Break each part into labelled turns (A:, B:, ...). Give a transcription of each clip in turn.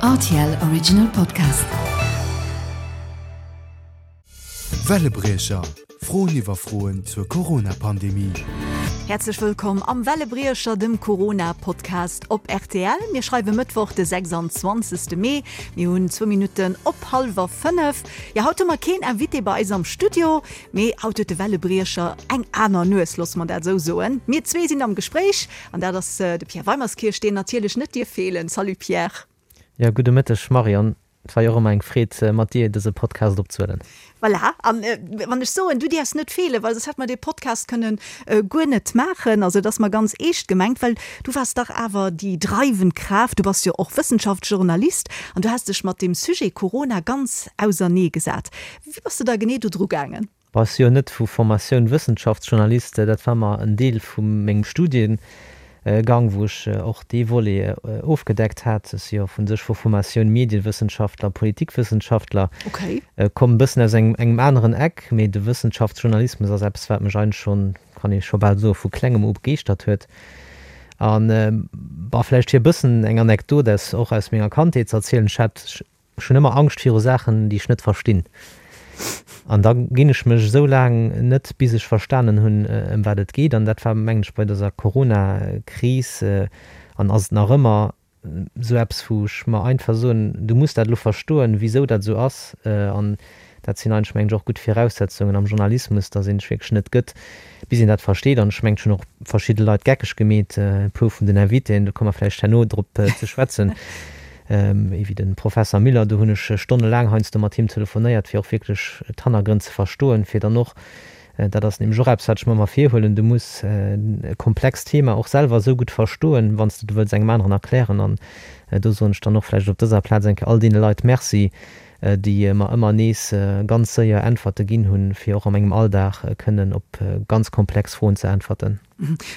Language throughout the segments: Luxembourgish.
A: Rtl Original Podcast.
B: Wellebriecher, Froen iwwer Froen zur Corona-Pandemie.
A: Häerzlech wëllkomm am Wellebriecher, dem Corona-Podcast op rtl. Mir schreiwe Mëttwoch, de 26. Mee. Mir hunn zwou Minutten op hallwer 5. Jo, haut hu mer keen Invité bei eis am Studio, mee haut huet de Wellebriecher eng aner Nues, loosse mer dat esou soen. Mir zwee sinn am Gespréich An dat ass de Pierre Weimerskirch, deen natierlech net dierf feelen. Salut Pierre.
C: Jo, gudde Mëtteg Marion. Et war jo och ëmmer eng Freed mat dir dëse Podcast opzehuelen.
A: Voilà, an wann ech soen, du däerfs net feelen, well soss hätt mer dee Podcast kënnen guer net maachen. Also et ass mer ganz eescht gemengt, well du waars dach awer déi dreiwend Kraaft, du bass jo och Wëssenschaftsjournalist an du has dech mat deem Sujet Corona ganz ausernee gesat. Wéi bass de da genee do dru gaangen?
C: Bass jo net vu Formatioun Wëssenschaftsjournalist, dat war mer en Deel vu mengem Studiengang, wou ech och dee Volet ofgedeckt hat. Ech si jo vu sech vu Formatioun Mediewëssenschaftler, Politikwëssenschaftler, komm e bëssen aus engem aneren Eck, mee de Wëssenschaftsjournalismus ass eppes, wat mech eigentlech schonn, kann ee scho bal soen, vu klengem u begeeschtert huet. An, bon, vläicht fir e bëssen eng Anekdot aus och aus menger Kandheet ze erzielen, ech hat Ech hunn ëmmer Angscht viru Saachen, déi ech net verstinn. An da ginn ech mech esou laang net, bis ech verstanen hunn, ëm wat et geet. An dat war, mengen ech, bei dëser Corona-Kris an ass et nach ëmmer esou eppes, wou ech mer einfach soen, du muss dat elo verstoen, wisou dat esou ass. An dat sinn eigentlech, mengen ech, och gutt Viraussetzungen am Journalismus, dass een sech wierklech net gëtt, bis een dat versteet. An ech mengen, ech hunn och verschidde Leit geckeg gemeet, e puer vun den Invitéen, do komme mer vläicht herno drop ze schwätzen, ewéi de Professer Müller, do hunn ech stonnelaang heiansdo mat him telefonéiert, fir och wierklech d'Hannergrënn ze verstoen, fir dann och, dat ass nämlech och eppes, wat ech mer ëmmer virhuelen, du muss e komplext Thema och selwer esou gutt verstoen, wann s de et wëlls engem aneren erklären. An do soen ech dann och vläicht op dëser Plaz eng Kéier all deene Leit Merci, déi mer ëmmer nees ganz séier Äntwerte ginn hunn, fir och a mengem Alldag kënnen op ganz komplex Froen ze äntwerten.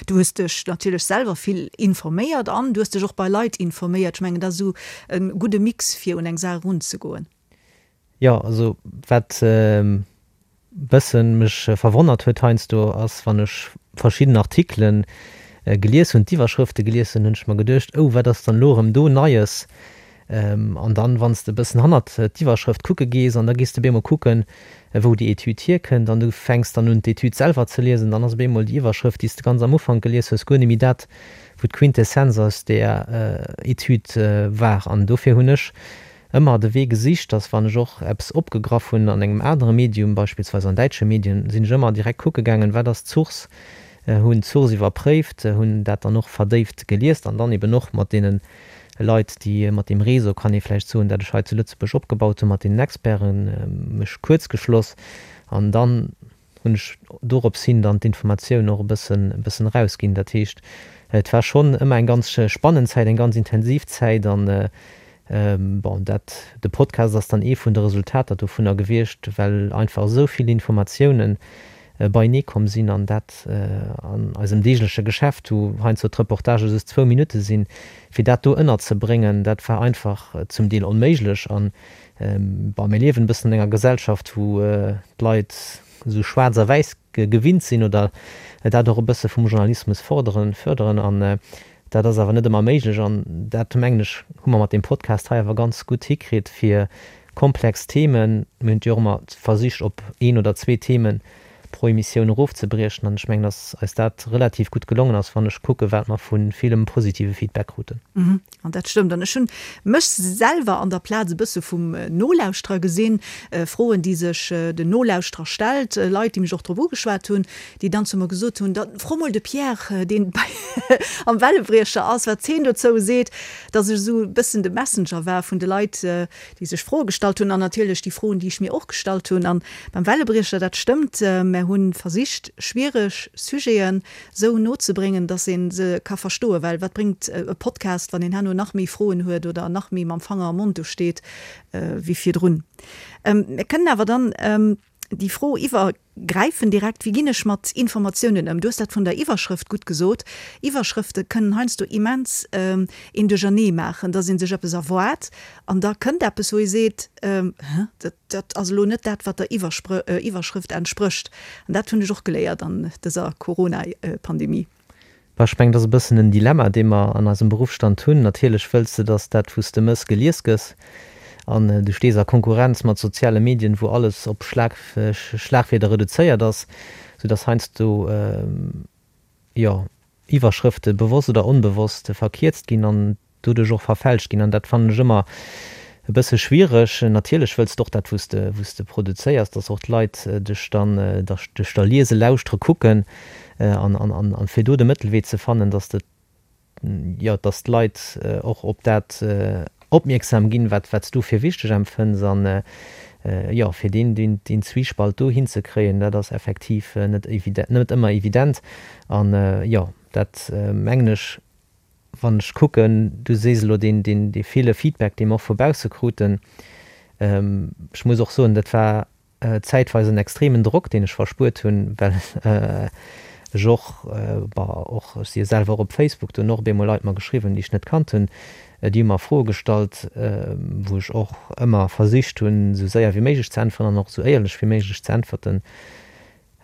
A: Du hues dech natierlech selwer vill informéiert an du hues dech och bei Leit informéiert. Ech mengen, dat ass esou e gudde Mix, fir un eng Saach erunzegoen.
C: Jo, also wat bëssen mech verwonnert huet heiansdo ass, wann ech verschidden Artikelen gelies hunn, d'Iwwerschrëfte gelies hunn, hunn ech mer geduecht, oh wat ass dann elo erëm do Neies? An dann, wann s de e bëssen hannert d'Iwwerschrëft kucke gees an da gees de op eemol kucken, wou déi Etüd hierkënnt an du fänks dann un d'Etüd selwer ze liesen, dann ass op eemol déi Iwwerschrëft, déi s de ganz am Ufank gelies hues, guer net méi dat, wou d'Quintessenz aus där Etüd war. An dofir hunn ech ëmmer de Wee gesicht, dass wann ech och eppes opgegraff hunn an engem anere Medium, beispillsweis an däitsche Medien, sinn ech ëmmer direkt kucke gaangen, wat ass d'Source, hunn d'Source iwwerpréift, hunn dat dann och verdéift geliest an dann eben och mat deene Leit, déi mat deem Réseau, kann ee vläicht soen, dat ech hei zu Lëtzebuerg opgebaut hunn, mat deenen Experten, mech kuerzgeschloss an dann hunn ech dorops hin dann d'Informatioun och e bëssen, e bëssen erausginn. Dat heescht, et war schonn ëmmer eng ganz spannend Zäit, eng ganz intensiv Zäit an, bon, dat, de Podcast ass dann ee vun de Resultater dovunner gewiescht, well einfach esou vill Informatiounen beienee komm sinn an dat an eisem deegleche Geschäft, wou heiansdo d'Reportagë just zwou Minutte sinn, fir dat do ënnerzebréngen, dat war einfach zum Deel onméiglech. An Bon, mir liewen e bëssen an enger Gesellschaft, wou d'Leit esou schwaarz a wäiss gewinnt sinn oder dat och e bësse vum Journalismus forderen, förderen. An dat ass awer net ëmmer méiglech. An dat, mengen ech, hu mer mat deem Podcast hei awer ganz gutt hikritt, fir komplex Themen, mir hunn et jo och ëmmer versicht, op een oder zwee Themen pro Emissioun erofzebriechen. An ech mengen, dass eis dat relativ gutt gelongen ass, wann ech kucken, wat mer vu villem positive Feedback kruten.
A: An dat stëmmt. An ech hunn mech selwer an der Plaz e bësse vum Nolauschterer gesinn, Froen, déi sech den Nolauschterer stellt, Leit, déi mech och drop ugeschwat hunn, déi dann zu mer gesot hunn, Da fro mol de Pierre, deen bei am Wellebriecher ass, wat heen dozou seet, dass ech esou e bëssen de Messenger war vun de Leit, déi sech Froe gestallt hunn an natierlech déi Froen, déi ech mir och gestallt hunn. An beim Wellebriecher, dat stëmmt, mär hu versicht, schwiereg Sujeten esou nozebréngen, dass ee se ka verstoen. Well wat bréngt e Podcast, wann een herno nach méi Froen huet oder nach méi mam Fanger am Mond do steet wéi virdrun? Mir kënnen awer dann déi Fro iwwergräifen direkt, Wéi ginn ech mat Informatiounen ëm? Du hues dat vun der Iwwerschrëft gutt gesot. Iwwerschrëfte kënnen heiansdo immens een duerchernee maachen, dass ee sech eppes erwaart an da kënnt eppes, wou ee seet, Hä, dat, dat ass elo net dat, wat der Iwwerschrëft entsprécht. An dat hunn ech och geléiert an dëser Corona-Pandemie.
C: Bah, ech mengen, dat ass e bëssen en Dilemma, dee mer an eisem Beruffsstand hunn. Natierlech wëlls de, dass dat, wou s de mëss, gelies gëss. An du stees a Konkurrenz mat soziale Medien, wou alles op Schlag, Schlagwierder reduzéiert ass, soudass heiansdo, jo, Iwwerschrëfte bewosst oder onbewosst verkierzt ginn an doduerch och verfälscht ginn. An dat fannen ech ëmmer e bësse schwiereg. Natierlech wëlls de och dat, wou s de, wou s de produzéiers, dass och d'Leit dech dann, dech da liesen, lauschtere, kucken. An, an, an fir do de Mëttelwee ze fannen, dass de, jo, dass d'Leit och op dat opmierksam ginn, wat, wat s du fir wichteg empfënns. An, jo, fir deen, deen, deen Zwiespalt do hinzekréien, dat ass effektiv net evident, net ëmmer evident. An, jo, dat mengen ech, Wann ech kucken, du sees elo deen, deen, dee ville Feedback, dee mer och vu bausse kruten, ech muss och soen, dat war zäitweis en extremen Drock, deen ech verspuert hunn, well ech och, bon, och, ech si jo selwer och op Facebook, do hunn och op eemol Leit mer geschriwwen, déi ech net kannt hunn, déi hu mer Froe gestallt, wou ech och ëmmer versicht hunn, esou séier wéi méiglech ze äntweren an och esou éierlech wéi méiglech ze äntwerten.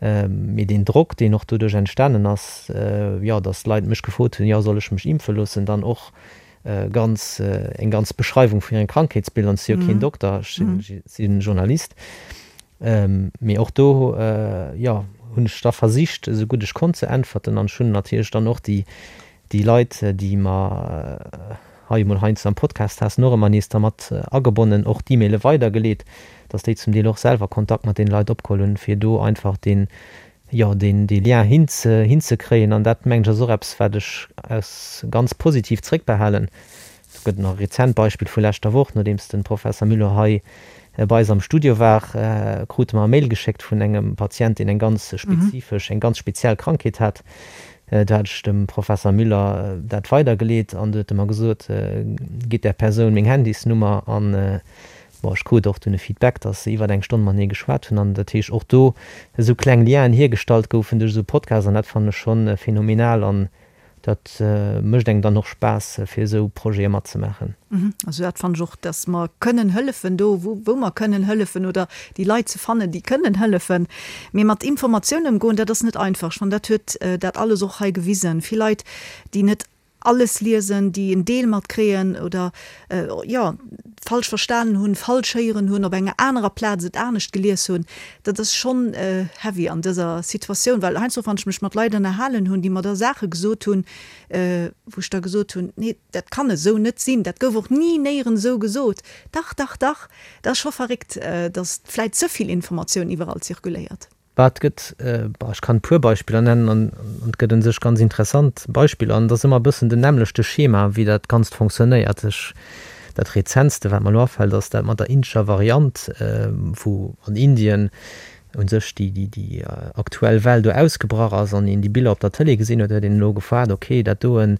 C: Mee deen Drock, deen och doduerch entstanen ass, jo, datt Leit mech gefrot hunn, jo, soll ech mech impfe loossen, dann och ganz, eng ganz Beschreiwung vun hirem Krankheetsbild, an ech si jo keen Dokter, ech si Journalist. Mee och do, jo, hunn ech da versicht, esou gutt ech konnt ze äntwerten an ech hunn natierlech dann och déi, déi Leit, déi mer hei emol heiansdo am Podcast haten, och ëmmer nees da mat agebonnen, och d'E-Maile weidergeleet, dass déi zum Deel och selwer Kontakt mat deene Leit opgeholl hunn, fir do einfach deen, jo, deen, dee Lien hinze, hinzekréien. An dat, mengen ech, ass och eppes, wat ech aus ganz positiv zréckbehalen. Do gëtt et nach e rezent Beispill vu leschter Woch, Nodeems de Professer Müller hei bei eis am Studio war, krute mer e Mail geschéckt vun engem Patient, deen eng ganz spezifesch, eng ganz speziell Krankheet hat. Do hat ech dem Professer Müller dat weidergeleet an du huet e mer gesot, Gitt där Persoun meng Handysnummer. An bon, ech krut och dunn e Feedback, dass se iwwert eng Stonn matenee geschwat hunn an dat heescht och do esou kleng Lienen hiergestallt goufen duerch esou Podcasts an dat fannen ech schonn phänomenal an Dat mécht engem dann och Spaass, fir esou Projete matzemaachen.
A: Also dat fannen ech och, dass mer kënnen hëllefen do, wou mer kënnen hëllefen oder déi Leit ze fannen, déi kënnen hëllefen. Mee mat Informatioun ëmgoen, dat ass net einfach. Ech fannen, dat huet dat alles och hei gewisen. Vill Leit, déi net alles liesen, déi en Deel matkréien oder, jo, falsch verstanen hunn, falsch héieren hunn, op enger anerer Plaz et anescht gelies hunn. Dat ass schonn heavy an dëser Situatioun, well heiansdo, wann ech mech mat Leit ënnerhalen hunn, déi mer da Saache gesot hunn, wou ech da gesot hunn, nee, dat kann esou net sinn, dat gouf och ni néierens esou gesot, dach, dach, dach, dat ass scho verréckt, datt vläit ze vill Informatioun iwwerall zirkuléiert.
C: Bah, et gëtt, bah, ech kann e puer Beispiller nennen an et gëtt un sech ganz interessant Beispiller an et ass ëmmer e bëssen den nämmlechte Schema, wéi dat Ganzt fonctionnéiert. Ech, dat rezentste, wat mer elo afält, ass dat mat der indescher Variant, wou an Indien u sech déi, déi, déi aktuell Well do ausgebrach ass an een déi Biller op der Tëlee gesinn huet, huet een elo gefaart, okay, dat doen,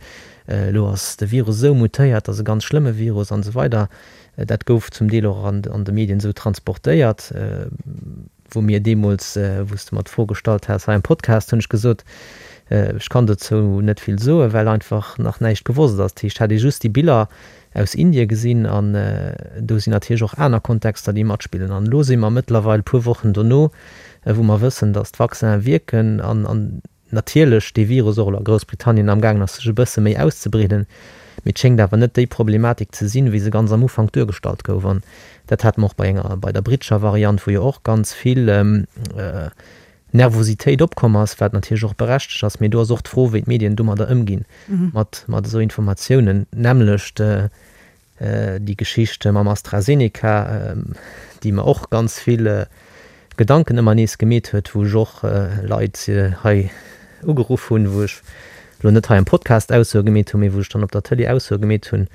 C: elo ass de Virus esou mutéiert, dat ass e ganz schlëmme Virus an esou weider. Dat gouf zum Deel och an, an de Medien esou transportéiert. Wou mir deemools, wou s de mer d'Fro gestallt has hei am Podcast, hunn ech gesot, ech kann dozou net vill soen, well einfach nach näischt gewosst ass. Dat heescht, hat ee just déi Biller aus Indie gesinn an do sinn natierlech och aner Kontexter, déi matspillen. An elo si mer mëttlerweil e puer Wochen dono, wou mer wëssen, datt d'Vaccinen wierken an natierlech dee Virus och elo a Groussbritannien amgaangen ass sech e bësse méi auszebreeden, mee et schéngt awer net déi Problematik ze sinn, wéi se ganz am Ufank duergestallt gouf. An dat hate mer och bei enger, bei der brittescher Variant, wou jo och ganz vill Nervositéit opkomm ass, wat natierlech och berechtegt ass, mee do ass och d'Fro, wéi d'Medien domadder ëmginn, mat mat esou Informatiounen, nämmlecht Déi Geschicht mam AstraZeneca, déi mer och ganz vill Gedanken ëmmer nees gemeet huet, wou ech och Leit hei ugeruff hunn, wou ech elo net hei am Podcast Aussoe gemeet hunn, mee wou ech dann op der Tëlee Aussoe gemeet hunn,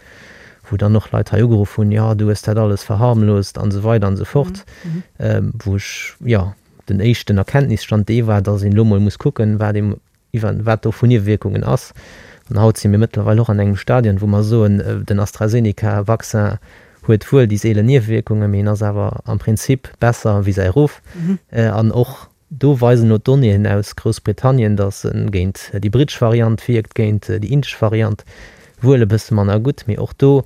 C: wou dann och Leit hei ugeruff hunn, jo du hues dat alles verharmlost an esou weider an esou fort, wou ech, jo, den éischten Erkenntnisstand dee war, datt een elo mol muss kucken, wat ee iwwer wat do vu Niewewierkungen ass. An haut si mir mëttlerweil och an engem Stadion, wou mer soen, den AstraZeneca-Vaccin huet wuel déi seelen Niewewierkungen, mee en ass awer am Prinzip besser wéi säi Ruff. An och do weisen elo d'Donnéeën aus Groussbritannien, datt e géint déi brittesch Variant wierkt, géint déi indesch Variant wuel e bësse manner gutt, mee och do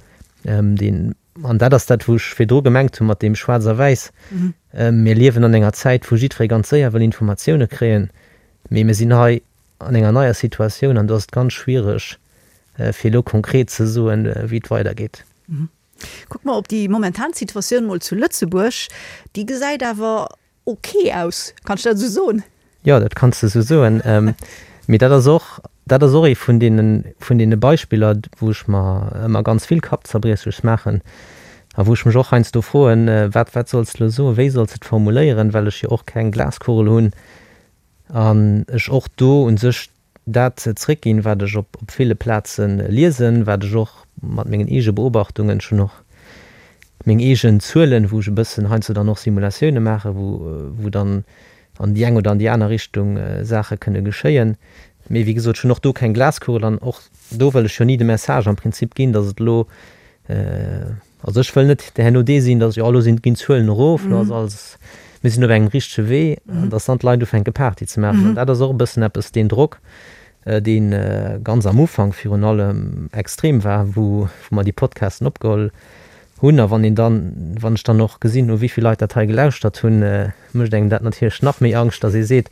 C: dee An dat ass dat, wou ech virdru gemengt hu mat deem Schwaarz a Wäiss. Mir liewen an enger Zäit, wou jiddweree ganz séier wëll Informatioune kréien, mee mir sinn hei. an enger neier Situatioun an do ass et ganz schwiereg, fir elo konkret ze soen, wéi et weidergeet.
A: Kucke mer op déi momentan Situatioun mol zu Lëtzebuerg. Déi gesäit awer ok aus. Kann ech dat esou soen?
C: Jo, dat kanns de esou soen. Mee dat ass och, dat ass och ee vun deene, vun deene Beispiller, wou ech mer ëmmer ganz vill Kappzerbriechleches maachen a wou ech mech och heiansdo froen, Wat, wat solls de elo soen, wéi solls de et formuléieren, well ech jo och keng Glaskugel hunn an ech och do u sech dat zréckginn, wat ech op ville Plaze liesen, wat ech och mat mengen eege Beobachtungen, ech hunn och meng eegen Zuelen, wou ech e bëssen heiansdo dann och Simulatioune maachen, wou wou dann an déi eng oder an déi aner Richtung Saache kënne geschéien. Mee wéi gesot, ech hunn och do keng Glaskugel an och do wëll ech jo ni de Message am Prinzip ginn, datt et elo Also ech wëll net herno dee sinn, datt jo elo sinn, ginn d'Zuelen erof, elo ass alles, mir sinn op engem richtege Wee, an datt dann d'Leit ufänke Party ze maachen. An dat ass och e bëssen eppes, deen Drock, dee ganz am Ufank virun allem extrem war, wou wou mer déi Podcasten opgeholl hunn. A wann een dann, wann ech dann och gesinn hu wéi vill Leit dat hei gelauschtert hunn, mécht engem dat natierlech nach méi Angscht, datt ee seet,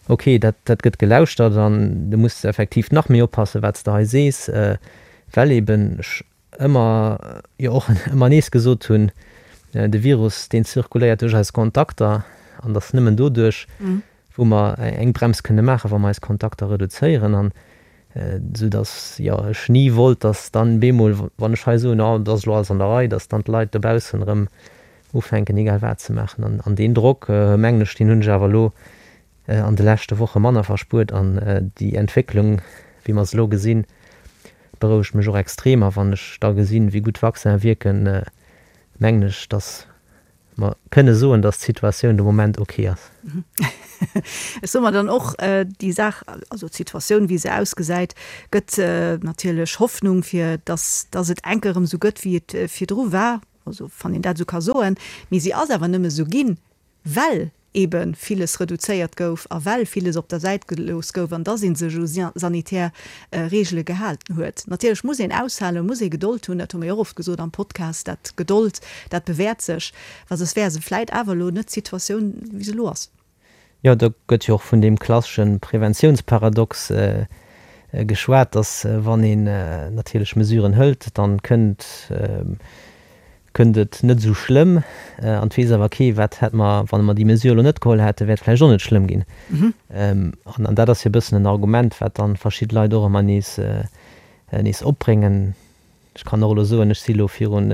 C: okay, dat dat gëtt gelauschtert an du muss effektiv nach méi oppassen, wat s de hei sees, well eben ech ëmmer, jo och ëmmer nees gesot hunn, de Virus, deen zirkuléiert duerch eis Kontakter an dass nëmmen doduerch, wou mer eng Brems kënne maachen, wa mer eis Kontakter reduzéieren. An esou dass, jo, ech ni wollt, dass dann bemol, wann ech hei soen, oh, et ass elo alles an der Rei, dass dann d'Leit dobaussen erëm ufänken, egal wat ze maachen. An deen Drock, mengen ech, deen hunn ech awer elo an de leschte Woche manner verspuert an déi Entwécklung, wéi mer se elo gesinn, berouegt mech och extrem. A wann ech da gesinn, wéi gutt d'Vaccinen wierken, mengen ech, datt mer kënne soen, datt d'Situatioun de Moment ok ass.
A: Ech soe mer dann och, déi Saach, also d'Situatioun, wéi se ausgesäit, gëtt natierlech Hoffnung, fir datt, datt et enk erëm esou gëtt, wéi et virdru war, also wann een dat esou ka soen. Mee si ass awer nëmme esou ginn, well ebe villes reduzéiert gouf a well villes op der Säit gelooss gouf an dass ee sech u sanitär Reegele gehalten huet. Natierlech muss een aushalen, muss ee Gedold hunn, dat hu mir jo och oft gesot am Podcast, dat Gedold, dat bewäert sech, well soss wär se vläit awer elo net d'Situatioun, wéi se elo ass.
C: Jo, do gëtt jo och vun deem klassesche Preventiounsparadox geschwat, dass wann een natierlech Mesuren hëlt, dann kënnt Kënnt et net esou schlëmm. An et weess awer kee, wat hätt mer, wann mer déi Mesure elo net geholl hätten, wär et vläicht och net schlëmm ginn. An dat ass jo e bëssen en Argument, wat dann verschidde Leit och ëmmer nees, nees opbréngen. Ech kann och elo soen, ech si elo virun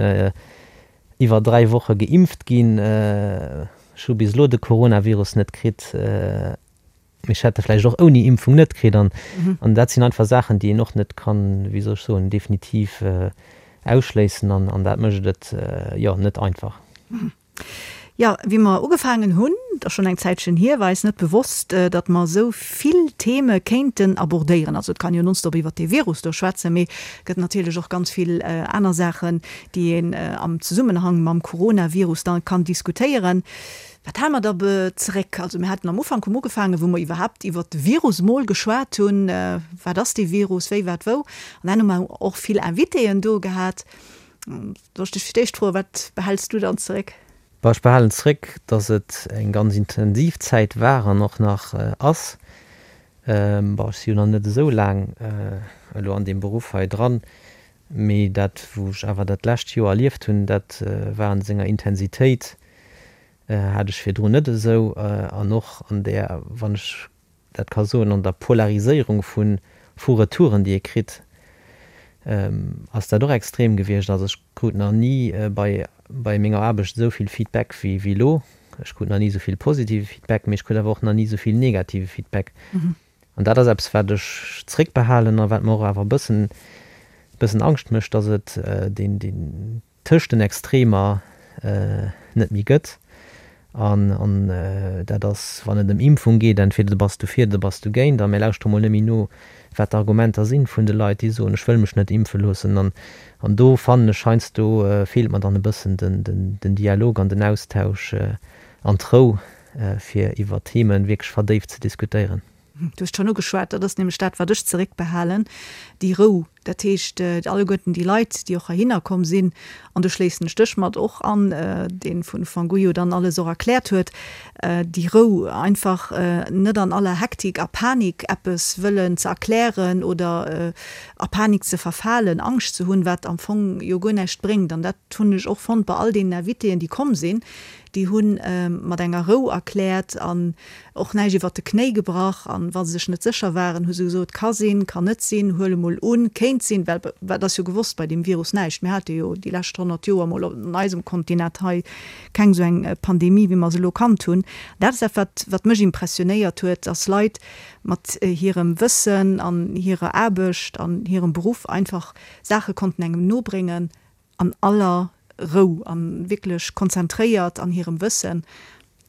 C: iwwer 3 Woche geimpft ginn. Ech hu bis elo de Coronavirus net kritt. Mee ech hätt e vläicht och ouni Impfung net kritt. An an dat sinn einfach Saachen, déi een och net kann, wéi soll ech soen, definitiv ausschléissen. An an dat mécht et, jo, net einfach.
A: Jo, wéi mer ugefaangen hunn, et ass schonn eng Zäitchen hier, war eis net bewosst, datt mer esou vill Theme kéinten abordéieren. Also et kann jo nonstop iwwert dee Virus do schwätzen, mee et gëtt natierlech och ganz vill aner Saachen, déi een am Zesummenhang mam Coronavirus da kann diskutéieren. Wat hale mer da zeréck? Also mir haten am Ufank, hu mer ugefaangen, wou mer iwwerhaapt iwwert de Virus emol geschwat hunn, wat ass dee Virus, wéi, wat, wou. An dann hu mer och vill Invitéen do gehat. Soll ech dech fir d'éischt froen, wat behäls du dann zeréck?
C: Bon, ech behalen zeréck, dass et eng ganz intensiv Zäit war an och nach ass. Bon, ech si jo nach net esou laang elo an deem Beruff hei dran, mee dat, wou ech awer dat lescht Joer erlieft hunn, dat war an senger Intensitéit Hat ech virdrun net esou. An och an där, wann ech dat ka soen, an der Polariséierung vu vu Retouren, déi ee kritt, ass dat och extrem gewiescht. Also ech krut nach ni bei bei menger Aarbecht esou vill Feedback wéi wéi elo. Ech krut nach ni esou vill positive Feedback, mee ech krut awer och nach ni esou vill negative Feedback. An dat ass eppes, wat ech zréckbehalen a wat mer och awer e bëssen bëssen Angscht mécht, dass et deen deen tëscht den Extremer net méi gëtt. An dat ass, wann et ëm Impfung geet, entweder du bass dofir oder bass dogéint. A mir lauschtere mol net méi no, wat d'Argumenter sinn vun de Leit, déi soen, ech wëll mech net impfe loossen. An do fannen ech, heiansdo feelt mer dann e bëssen den Dialog an den Austausch an d'Rou, fir iwwer Themen wierklech verdéift ze diskutéieren.
A: Du hues et schonn ugeschwat, dat ass nämlech dat, wat ech zeréckbehalen, déi Rou. Dat heescht, alleguerten déi Leit, déi och heihinner komm sinn, an do schléissen ech dech mat och an, dee vun Ufank u jo dann alles och erkläert huet, déi Rou, einfach net an aller Hektik a Panik eppes wëllen ze erklären oder a Panik ze verfalen, Angscht ze hunn, wat am Fong jo guer näischt bréngt. An dat hunn ech och fonnt bei all deenen Invitéen, déi komm sinn, déi hu mat enger Rou erkläert an och näischt iwwert de Knéi gebrach. An wa se sech net sécher waren, hu se gesot, ka sinn, kann net sinn, huele mol un, kéint sinn, well wat ass jo gewosst bei deem Virus? Näischt. Mir hate jo déi lescht 100 Joer mol an eisem Kontinent hei keng esou eng Pandemie, wéi mer se elo kannt hunn. Dat ass dat, wat, wat mech impressionéiert huet, dass Leit mat hirem Wëssen an hirer Aarbecht an hirem Beruff einfach Saache konnten engem nobréngen an aller Rou a wierklech konzentréiert an hirem Wëssen.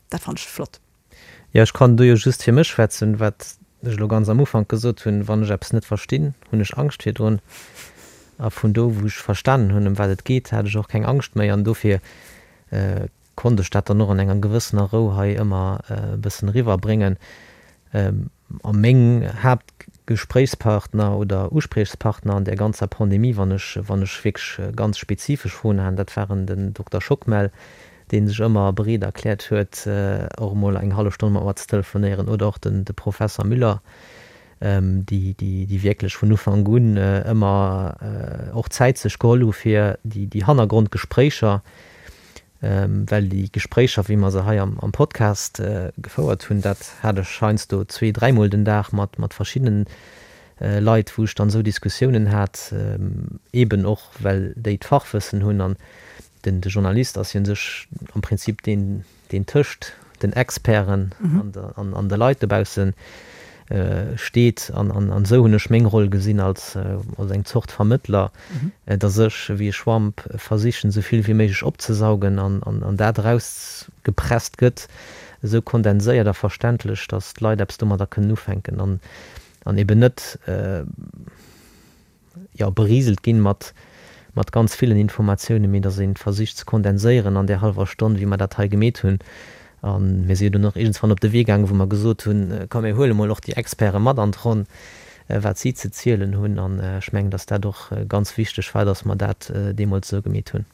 A: Dat fannen ech flott.
C: Jo, ech kann do jo just fir mech schwätzen, wat ech elo ganz am Ufank gesot hunn, Wann ech eppes net verstinn, hunn ech Angscht virdrun. A vun do, wou ech verstanen hunn, ëm wat et geet, hat ech och keng Angscht méi. An dofir konnt ech dat dann och an enger gewëssener Rou hei ëmmer e bëssen eriwwerbréngen. A meng Haaptgespréichspartner oder Uspriechspartner an där ganzer Pandemie, wann ech, wann ech wierklech ganz spezifesch Froen hat, dat waren den Dokter Schockmel, dee sech ëmmer bereet erkläert huet, och emol eng hallef Stonn mat mer ze telefonéieren, oder och den, de Professer Müller, déi, déi, déi wierklech vun Ufank un ëmmer och Zäit sech geholl hu fir déi, déi Hannergrondgespréicher, Well déi Gespréicher, wéi mer se hei am Podcast gefouert hunn, dat hat ech heiansdo zwee-, dräimol den Dag mat verschiddenen Leit, wou ech dann esou Diskussiounen hat, eeben och well déi d'Fachwëssen hunn. An den de Journalist ass jo u sech am Prinzip deen, deen tëscht den Experten an de Leit dobausse steet. An esou hunn ech meng Roll gesinn als eng Zort Vermëttler, datt ech wéi e Schwamp versichen, esou vill wéi méiglech opzesaugen an dat erausgepresst gëtt, esou kondenséiert a verständlech, datt d'Leit eppes domadder kënnen ufänken an eben net, jo, beriselt ginn mat, mat ganz villen Informatiounen, mee dass een versicht ze kondenséieren an där hallwer Stonn, wéi mer dat hei gemeet hunn. A mir si jo dunn och iergendswann op de Wee gaangen, wou mer gesot hunn, komm mir huele mol och déi Experte mat an d'Ronn, wat si ze zielen hunn. An ech mengen, dass dat och ganz wichteg war, dass mer dat deemools esou gemeet hunn.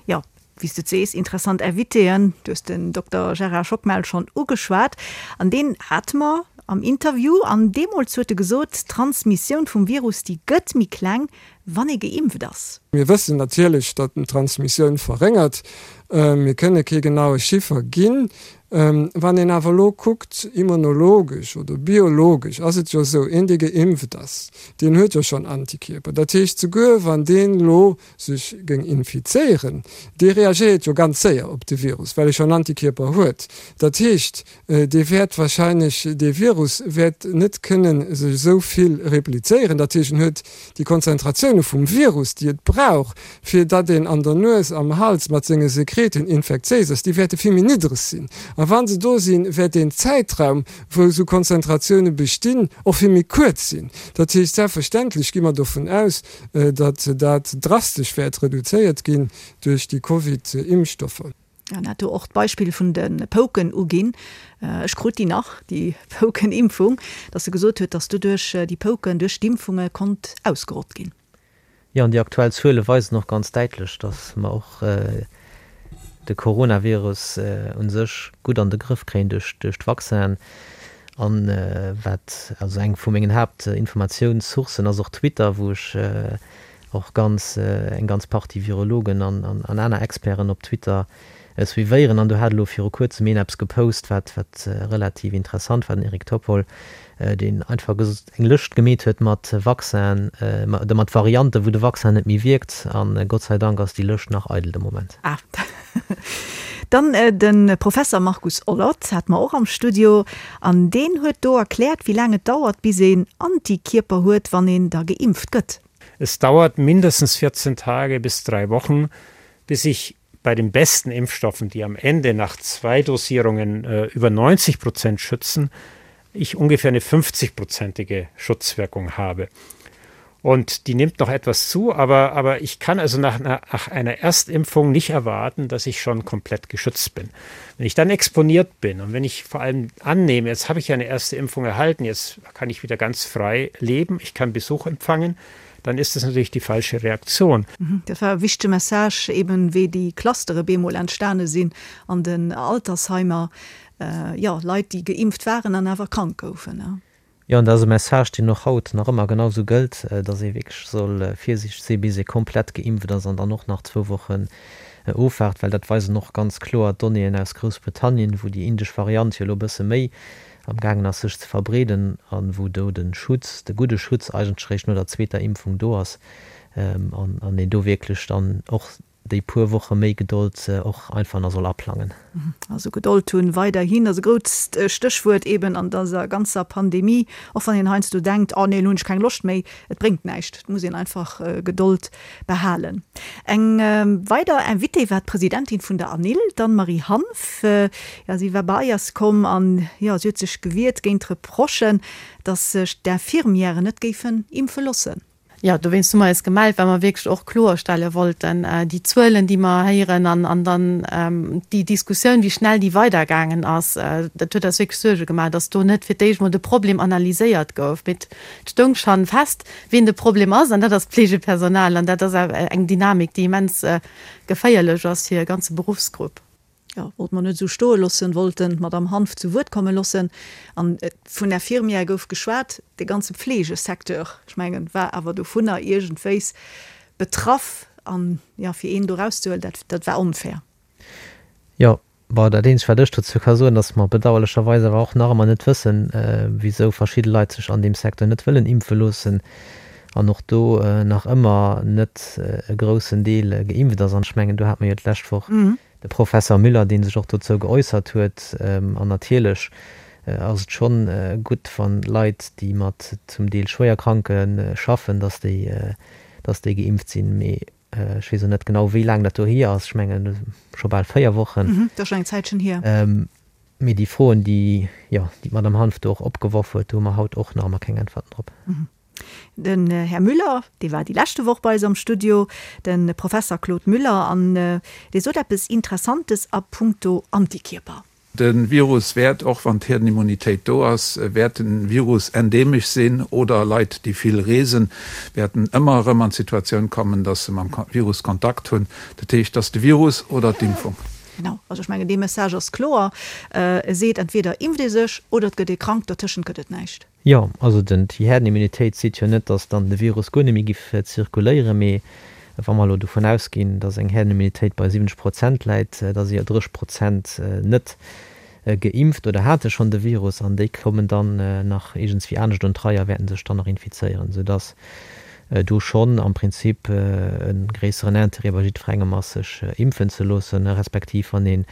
A: Jo, wéi s de et sees, interessant Invitéen. Du hues den Dokter Gérard Schockmel schonn ugeschwat an deen hate mer am Interview an deemools huet e gesot, d'Transmissioun vum Virus, déi gëtt méi kleng, wann ee geimpft ass.
D: Mir wëssen natierlech, datt en d'Transmissioun verréngert. Mir kënne kee genaue Chiffer ginn. Wann een awer elo kuckt, immunologesch oder biologesch ass et jo esou, een dee geimpft ass, deen huet jo schonn Antikierper. Dat heescht, souguer wann deen elo sech géing infizéieren, dee reagéiert jo ganz séier op de Virus, well e schonn Antikierper huet. Dat heescht, dee wäert wahrscheinlech, dee Virus wäert net kënne sech esou vill replizéieren. Dat heescht, en huet déi Konzentratioune vum Virus, déi et brauch, fir datt een an der Nues, am Hals mat senge Sekreten infektiéis ass, déi wäerte vill méi niddreg sinn. A wa se do sinn, wäert deen Zäitraum, wou esou Konzentratioune bestinn, och vill méi kuerz sinn. Dat heescht, selbstverständlech gi mer dovun aus, datt dat drastesch wäert reduzéiert ginn duerch déi Covid-Impfstoffer.
A: En hat do och d'Beispill vun de Pouken uginn, ech krut déi nach, déi Poukenimpfung, datt e gesot huet, datt doduerch déi Pouken duerch d'Impfunge konnt ausgerott ginn.
C: Jo, an déi aktuell Zuele weisen och ganz däitlech, datt mer och de Coronavirus u sech gutt an de Grëff kréien duerch d'Vaccinen. An wat, also eng vu mengen Haaptinformatiounssourcen ass och Twitter, wou ech och ganz, eng ganz Partie Virologen an aner Experten op Twitter suivéieren. An do hat elo viru kuerzem een eppes gepost, wat, wat relativ interessant war, den Eric Topol, deen einfach eng Lëscht gemeet huet mat Vaccinen, oder mat Varianten, wou de Vaccin net méi wierkt. A Gott sei Dank ass déi Lëscht nach eidel de Moment.
A: Ah. Dann de Professer Markus Ollert hate mer och am Studio an deen huet do erkläert, wéi laang et dauert, bis een Antikierper huet, wann een da geimpft gëtt.
E: Es dauert mindestens 14 Tage bis drei Wochen, bis ich bei den besten Impfstoffen, die am Ende nach zwei Dosierungen äh, über 90 Prozent schützen, ich ungefähr eine 50-prozentige Schutzwirkung habe. Und die nimmt noch etwas zu, aber, aber ich kann also nach einer, nach einer Erstimpfung nicht erwarten, dass ich schon komplett geschützt bin. Wenn ich dann exponiert bin und wenn ich vor allem annehme, jetzt habe ich eine erste Impfung erhalten, jetzt kann ich wieder ganz frei leben, ich kann Besuch empfangen, dann ist das natürlich die falsche Reaktion.
A: Dat war e wichtege Message, eben wéi déi Clustere bemol entstane sinn an den Altersheimer, jo, Leit, déi geimpft waren an awer krank goufen.
C: Jo, an dat ass e Message, deen och haut nach ëmmer genau esou gëllt, dass ee wierklech soll virsiichteg sinn, bis ee komplett geimpft ass an dann och nach zwou Wochen ofwaart, well dat weisen och ganz kloer d'Donnéeën aus Groussbritannien, wou déi indesch Variant jo elo e bësse méi am gaangen ass sech ze verbreeden a wou do de Schutz, de gudde Schutz eigentlech eréischt no der zweeter Impfung do ass an een do wierklech dann och déi puer Woche méi Gedold och einfach nach soll aplangen.
A: Also Gedold hunn weiderhin ass e grousst Stéchwuert eben an dëser ganzer Pandemie, och wann een heiansdo denkt, oh nee, elo hunn ech keng Loscht méi. Et bréngt näischt, et muss een einfach Gedold behalen. Eng weider Invitée war d'Presidentin vun der ANIL, d'Anne-Marie Hanff. Jo, si war bei eis komm an jo, si huet sech gewiert géint d'Reprochen, datt sech d'Infirmièren net géifen impfe loossen.
F: Jo, dowéinst hu mer eis gemellt, well mer wierklech och kloerstelle wollten, déi Zuelen, déi mer héieren an an dann déi Diskussioun, wéi schnell déi weidergaangen ass, dat huet eis wierklech Suerge gemaach, dass do net fir d'éischt mol de Problem analyséiert gouf. Mee et stoung schonn fest, wien de Problem ass, an dat ass d'Pflegepersonal. An dat ass eng Dynamik, déi immens geféierlech ass fir e ganze Beruffsgrupp.
A: Jo, wollte mer net esou stoe loossen, wollten d'Madame Hanff zu Wuert komme loossen. An vun Infirmière gouf geschwat. De ganze Pflegesecteur, ech mengen, war awer dovunner iergendwéis betraff. An, jo, fir een do erauszehuelen, dat, dat war onfair.
C: Jo, bon, dat eenzegt, wat ech dozou ka soen, datt mer bedauerlecherweis awer och nach ëmmer net wëssen, wisou verschidde Leit sech an deem Secteur net wëllen impfe loossen an och do nach ëmmer net e groussen Deel geimpft ass. An ech mengen, do hate mer jo d'lescht Woch de Professer Müller, dee sech och dozou geäussert huet. An natierlech ass et schonn gutt, wann Leit, déi mat zum Deel Schwéierkranke schaffen, datt déi, datt déi geimpft sinn. Mee ech weess och net genau, wéi laang dat do hier ass. Ech mengen, scho bal 4 Wochen.
A: Dat ass schonn eng Zäitchen hier.
C: Mee déi Froen, déi, jo, déi d'Madame Hanff do och opgeworf huet, do hu mer haut och nach ëmmer keng Äntwerten drop.
A: Den Här Müller, dee war déi leschte Woch bei eis am Studio, de Professer Claude Müller, an dee sot eppes Interessantes a puncto Antikierper.
G: De Virus wäert, och wann d'Hierdenimmunitéit do ass, wäert de Virus endemesch sinn oder Leit, déi vill reesen, wäerten ëmmer erëm an d'Situatioun kommen, dass se mam Virus Kontakt hunn. Dat heescht, dass de Virus oder d'Impfung.
A: Genau, also ech mengen, dee Message ass kloer. E seet, entweder impft ee sech oder et gëtt ee krank, dertëschent gëtt et näischt.
C: Jo, also den, déi Herdenimmunitéit seet jo net, datt dann de Virus guer net méi giff zirkuléieren, mee wa mer elo dovun ausginn, datt eng Herdenimmunitéit bei 70 Prozent läit, da si jo 30 Prozent net geimpft oder hate schonn de Virus an déi kommen dann nach iergendswéi anescht un d'Rei a wäerten sech dann nach infizéieren, soudatt do schonn am Prinzip e gréisseren Intérêt bei jiddwerengem ass, sech impfen ze loossen, respektiv wann een,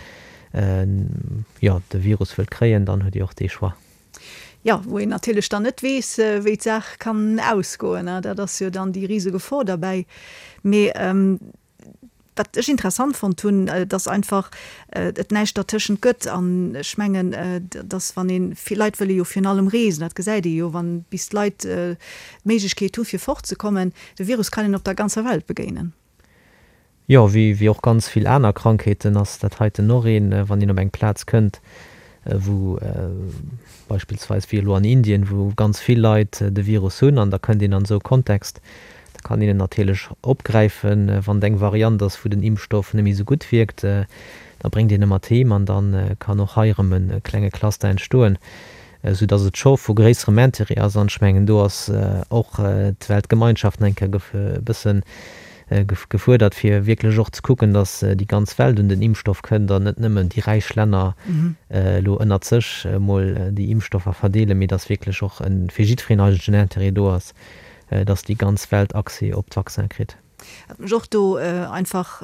C: jo, de Virus wëllt kréien, dann huet ee och dee Choix.
A: Jo, wou een natierlech dann net weess, wéi d'Saach kann ausgoen. Dat ass jo dann déi rise Gefor derbäi. Mee wat ech interessant fonnt hunn, dass einfach et näischt dertëschent gëtt. An ech mengen, dass wann een, vill Leit wëlle jo virun allem reesen, dat gesäit ee jo, wann bis d'Leit d'Méiglechkeet hu fir fortzekommen, de Virus kann een op der ganzer Welt begéinen.
C: Jo, wéi och ganz vill aner Krankheeten ass dat heiten och een, wann een op eng Plaz kënnt, wou beispillsweis wéi elo an Indien, wou ganz vill Leit de Virus hunn an da kënnt een an esou e Kontext, da kann een en natierlech opgräifen. Wann et eng Variant ass, wou den Impfstoff net méi esou gutt wierkt, da bréngt een e mat heem an da kann och hei erëm e klenge Cluster entstoen, esou dass et scho vu gréisserem Intérêt ass. An ech mengen, do ass och d'Weltgemeinschaft nach eng Kéier e bëssen gefuerdert, fir wierklech och ze kucken, datt déi ganz Welt un den Impfstoff kënnt an net nëmmen déi räich Länner elo ënnert sech emol déi Impfstoffer verdeelen, mee datt wierklech och fir jiddwereen eigentlech en Intérêt do ass, datt déi ganz Welt Accès op d'Vaccin kritt.
A: Wat mech och do einfach,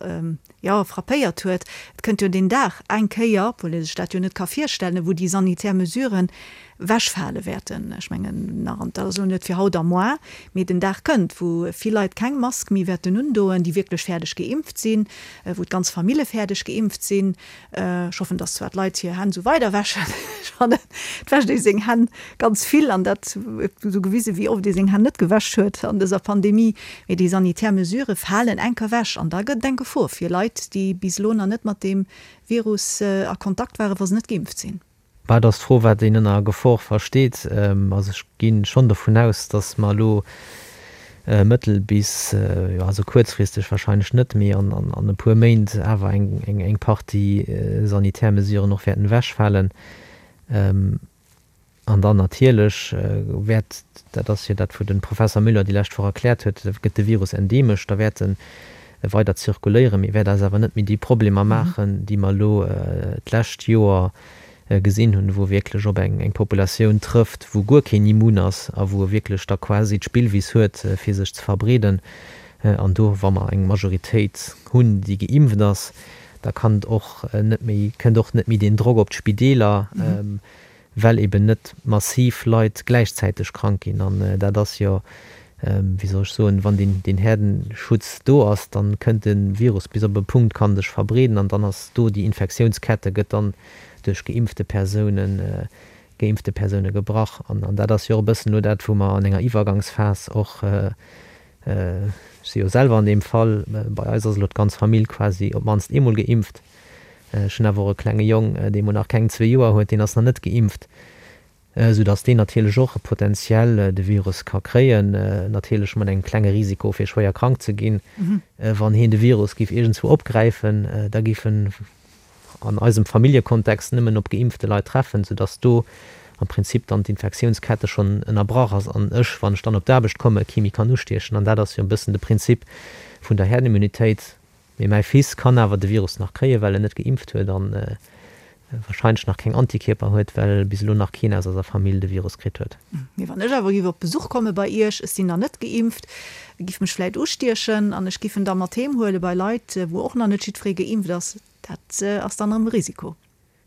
A: jo, frappéiert huet, et kënnt jo deen Dag eng Kéier, obwuel ee sech dat jo net ka virstellen, wou déi sanitär Mesuren wechfale wäerten. Ech mengen nach, an dat ass elo net fir haut a moar, mee den Dag kënnt, wou vill Leit keng Mask méi wäerten undoen, déi wierklech fäerdeg geimpft sinn, wou d'ganz Famille fäerdeg geimpft sinn. Ech hoffen, dass zwar d'Leit hir Hänn esou weider wäschen. Ech fannen, et wäscht ee seng Hänn ganz vill an dat huet esou gewisen, wéi oft ee seng Hänn net gewäsch huet an dëser Pandemie. Mee déi sanitär Mesurë falen enker ewech an da gëtt et eng Gefor fir Leit, déi bis elo nach net mat deem Virus a Kontakt waren, wa se net geimpft sinn.
C: Bah, et ass d'Fro, wat een ënner Gefor versteet. Also ech gi schonn dovun aus, datt mer elo. Mëttel bis, jo also kuerzfristeg wahrscheinlech net, mee an e puer Méint awer eng Partie sanitär Mesuren och wäerten ewechfalen. An dann natierlech wäert, dat ass jo dat wou de Professer Müller déi lescht Woch erkläert huet, gëtt de Virus endeemesch, da wäert e weider zirkuléieren, mee wäert eis awer net méi déi Problemer maachen, déi mer elo d'lescht Joer gesinn hunn, wou e wierklech op eng Populatioun trëfft, wou guer keen immun ass a wou e wierklech da quasi d'Spillwiss huet, fir sech ze verbreeden. An do, wa mer eng Majoritéit hunn, déi geimpft ass, da kann et och net méi, kënnt och net méi deen Drock op d'Spideeler, well eben net massiv Leit gläichzäiteg krank ginn. An dat ass jo, wéi soll ech soen, wann deen Herdenschutz do ass, da kënnt de Virus bis op e Punkt, kann sech verbreeden an dann ass do déi Infektiounskette gëtt dann duerch geimpfte Persounen, geimpfte Persoune gebrach. An dat ass jo och e bëssen elo dat, wou mer an enger Iwwergangsphas och, ech si jo selwer an deem Fall, bei eis ass elo d'ganz Famill quasi op d'mannst eemol geimpft. Ech hunn awer och e klenge Jong, dee mol nach keng zwee Joer huet, deen ass nach net geimpft, soudass deen natierlech och potenziell de Virus ka kréien, natierlech mat engem klenge Risiko fir schwéier krank ze ginn. Wann heen de Virus géif iergendswou opgräifen, da géif en an eisem Familljekontext nëmmen op geimpfte Leit treffen, soudass do am Prinzip dann d'Infektiounskette schonn ënnerbrach ass an ech, wann ech dann op d'Aarbecht komme, kee méi kann ustiechen. An dat ass jo e bëssen de Prinzip vun der Herdenimmunitéit. Mee mäi Fils kann awer de Virus nach kréien, well en net geimpft huet an wahrscheinlech nach keng Antikierper huet, well bis elo nach keen aus eiser Famill de Virus kritt huet.
A: Mee wann ech awer giff op Besuch komme bei iech, ech sinn nach net geimpft, giff mech vläit ustiechen an ech giff en da mat heem huele bei Leit, wou och nach net jiddweree geimpft ass, dat ass dann erëm e Risiko.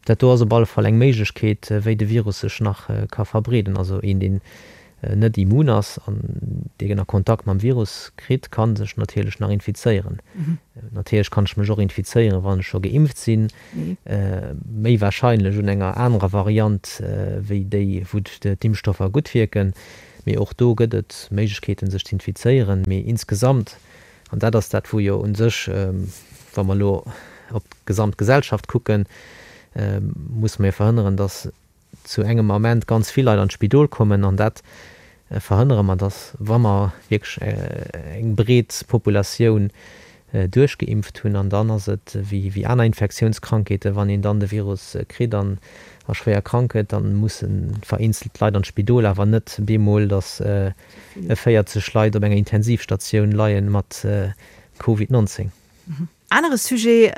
C: Dat do ass op alle Fall eng Méiglechkeet, wéi de Virus sech nach ka verbreeden. Also een, deen net immun ass an deen a Kontakt mam Virus kritt, ka sech natierlech nach infizéieren. Natierlech kann ech mech och infizéieren, wann ech scho geimpft sinn, méi warscheinlech un enger anerer Variant wéi déi, wou d'Impfstoffer gutt wierken. Mee och do gëtt et Méiglechkeeten, sech z'infizéieren. Mee insgesamt An dat ass dat, wou jo u sech, wa mer elo op d'gesamt Gesellschaft kucken, musse mer jo verhënneren, dass zu engem Ament ganz vill Leit an d'Spidol kommen. An dat verhënnere mer, dass, wa mer wierklech eng breet Populatioun duerchgeimpft hunn, an dann ass et wéi aner Infektiounskrankheeten, wann een dann de Virus kritt an a schwéier krank gëtt, da musse vereenzelt Leit an d'Spidol, awer net bemol, dass 40 Leit op enger Intensivstatioun leien mat Covid 19.
A: Anere Sujet,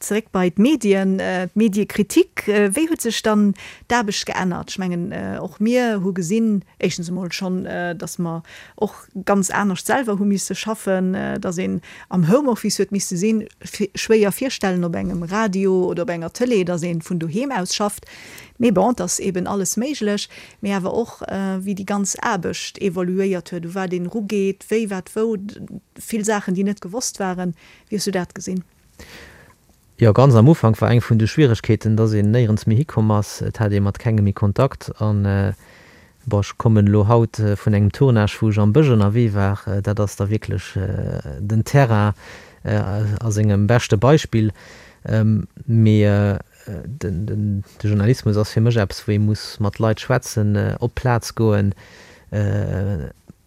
A: zeréck bei d'Medien, d'Mediekritik. Wéi huet sech dann d'Aarbecht geännert? Ech mengen, och mir hu gesinn, éischtens emol schonn, datt mer och ganz anescht selwer hu misse schaffen, datt een am Homeoffice huet misse sinn. Schwéier virstellen op engem Radio oder op enger Tëlee, datt ee vun doheem aus schafft. Mee bon, et ass eben alles méiglech. Mee awer och wéi déi ganz Aarbecht evoluéiert huet, u wat een erugeet, wéi, wat, wou, vill Saachen, déi net gewosst waren. Wéi hues du dat gesinn?
C: Jo, ganz am Ufank war eng vun de Schwieregkeeten, dass een néierens méi hikomm ass. Et hat ee mat kengem méi Kontakt. An, bon, ech kommen elo haut vun engem Tournage, wou ech am Bësch ënnerwee war. Dat ass da wierklech den Terrain a sengem beschte Beispill. Mee De Journalismus ass fir mech eppes, wou ee muss mat Leit schwätzen, op d'Plaz goen.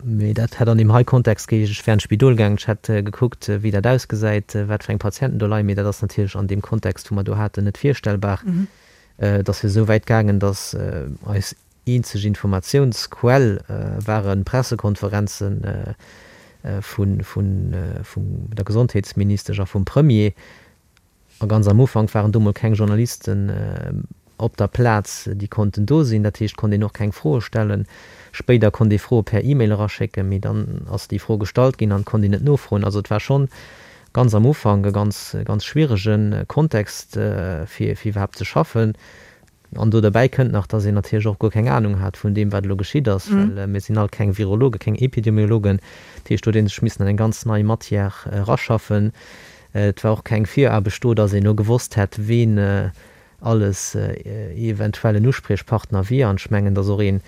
C: Mee dat hätt an deem hei Kontext geheescht, ech wär an d'Spidol gaangen, ech hätt gekuckt, wéi dat ausgesäit, wat fir eng Patienten do leien. Mee dat ass natierlech an deem Kontext, wou mer do haten, net virstellbar. Et ass jo esou wäit gaangen, datt eis eenzeg Informatiounsquell ware Pressekonferenze vun der Gesondheetsministesch a vum Premier. A ganz am Ufank waren do mol keng Journalisten op der Plaz, déi konnten do sinn. Dat heescht, konnt een och keng Froe stellen. Spéider konnt ee Froe per E-Mail eraschécken, mee dann ass déi Fro gestallt ginn an et konnt een net nofroen. Also et war schonn ganz am Ufank e ganz, ganz schwierege Kontext, fir iwwerhaapt ze schaffen. An do derbäi kënnt nach, dass een natierlech och guer keng Anung hat vun deem, wat elo geschitt ass, well mir sinn all keng Virologen, keng Epidemiologen. Dat heescht, do huet ee sech missen an eng ganz nei Matière eraschaffen. Et war och keng Viraarbecht do, dass een elo gewosst hätt, ween alles eventuell en Uspriechpartner wier. An ech mengen, dass och een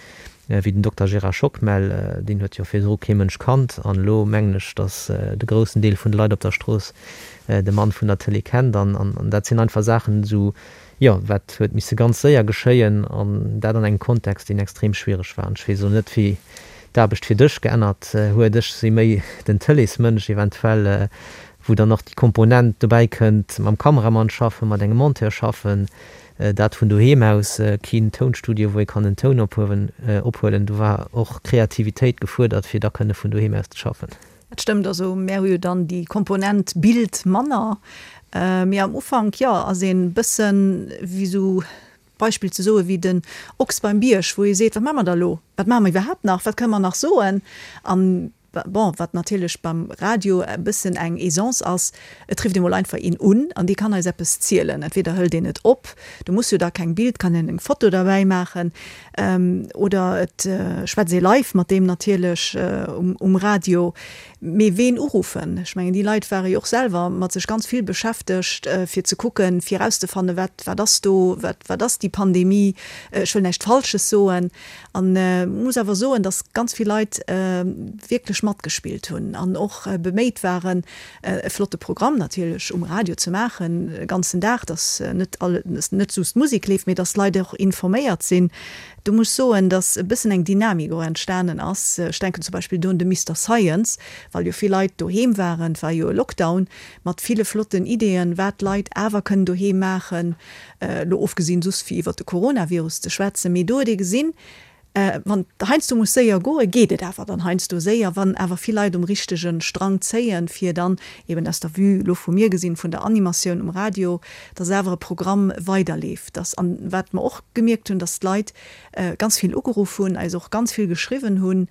C: wéi den Dokter Gérard Schockmel, deen huet jo virdru kee Mënsch kannt, an elo mengen ech, dass de groussen Deel vun de Leit op der Strooss de Mann vun der Tëlee kennt. An dat sinn einfach Saachen, esou Jo, wat huet misse ganz séier geschéien, an dat an engem Kontext, deen extrem schwiereg war. An ech weess elo net, wéi. d'Aarbecht fir dech geännert huet. Ech si méi den Tëleesmënsch eventuell, wou dann och déi Komponent dobäi kënnt, mam Kameramann schaffen, mat engem Monteur schaffen, dat vun doheem aus, keen Tounstudio, wou ee kann den Toun ophuewen, ophuelen. Do war och Kreativitéit gefuerdert, fir da kënne vun doheem aus ze schaffen.
A: Dat stëmmt. Also mär hu jo dann déi Komponent Bild manner. Mee am Ufank, jo, ass een bëssen wéi esou, Beispill ze soen, wéi den Ochs beim Bierg, wou ee seet, wat maache mer da elo? Wat maache mer iwwerhaapt nach? Wat kënne mer nach soen? An bon, wat natierlech beim Radio e bëssen eng Aisance ass, et rifft ee mol einfach een un an dee kann eis eppes zielen. Entweder hëlt een et op, do muss jo da keng Bild, kann een eng Foto derbäi maachen, oder et schwätzt ee live mat deem natierlech um Radio. Mee ween uruffen? Ech mengen, déi Leit ware jo och selwer mat sech ganz vill beschäftegt, fir ze kucken, fir erauszefannen, wat, wat ass do, wat, wat ass déi Pandemie? Ech wëll näischt Falsches soen. An muss awer soen, datt ganz vill Leit wierklech matgespillt hunn an och beméit waren, e flotte Programm natierlech um Radio ze maachen, e ganzen Dag, datt net all, net just Musek leeft, mee datt d'Leit och informéiert sinn. Do muss ech soen, datt e bëssen eng Dynamik och entstanen ass. Ech denken zum Beispill do un de Mister Science, well jo vill Leit doheem waren, et war jo e Lockdown, mat ville flotten Ideeën, wat d'Leit awer kënnen doheem maachen, elo ofgesinn soss fir iwwert de Coronavirus ze schwätzen. Mee do huet ee gesinn, wann et heiansdo muss séier goen, geet et awer dann heiansdo séier, wann awer vill Leit um richtege Strang zéien, fir dann eben aus der Vue elo vu mir gesinn, vun der Animatioun um Radio, dass awer e Programm weiderleeft, dass, an wat mer och gemierkt hunn, dass d'Leit ganz vill ugeruff hunn, eis och ganz vill geschriwwen hunn,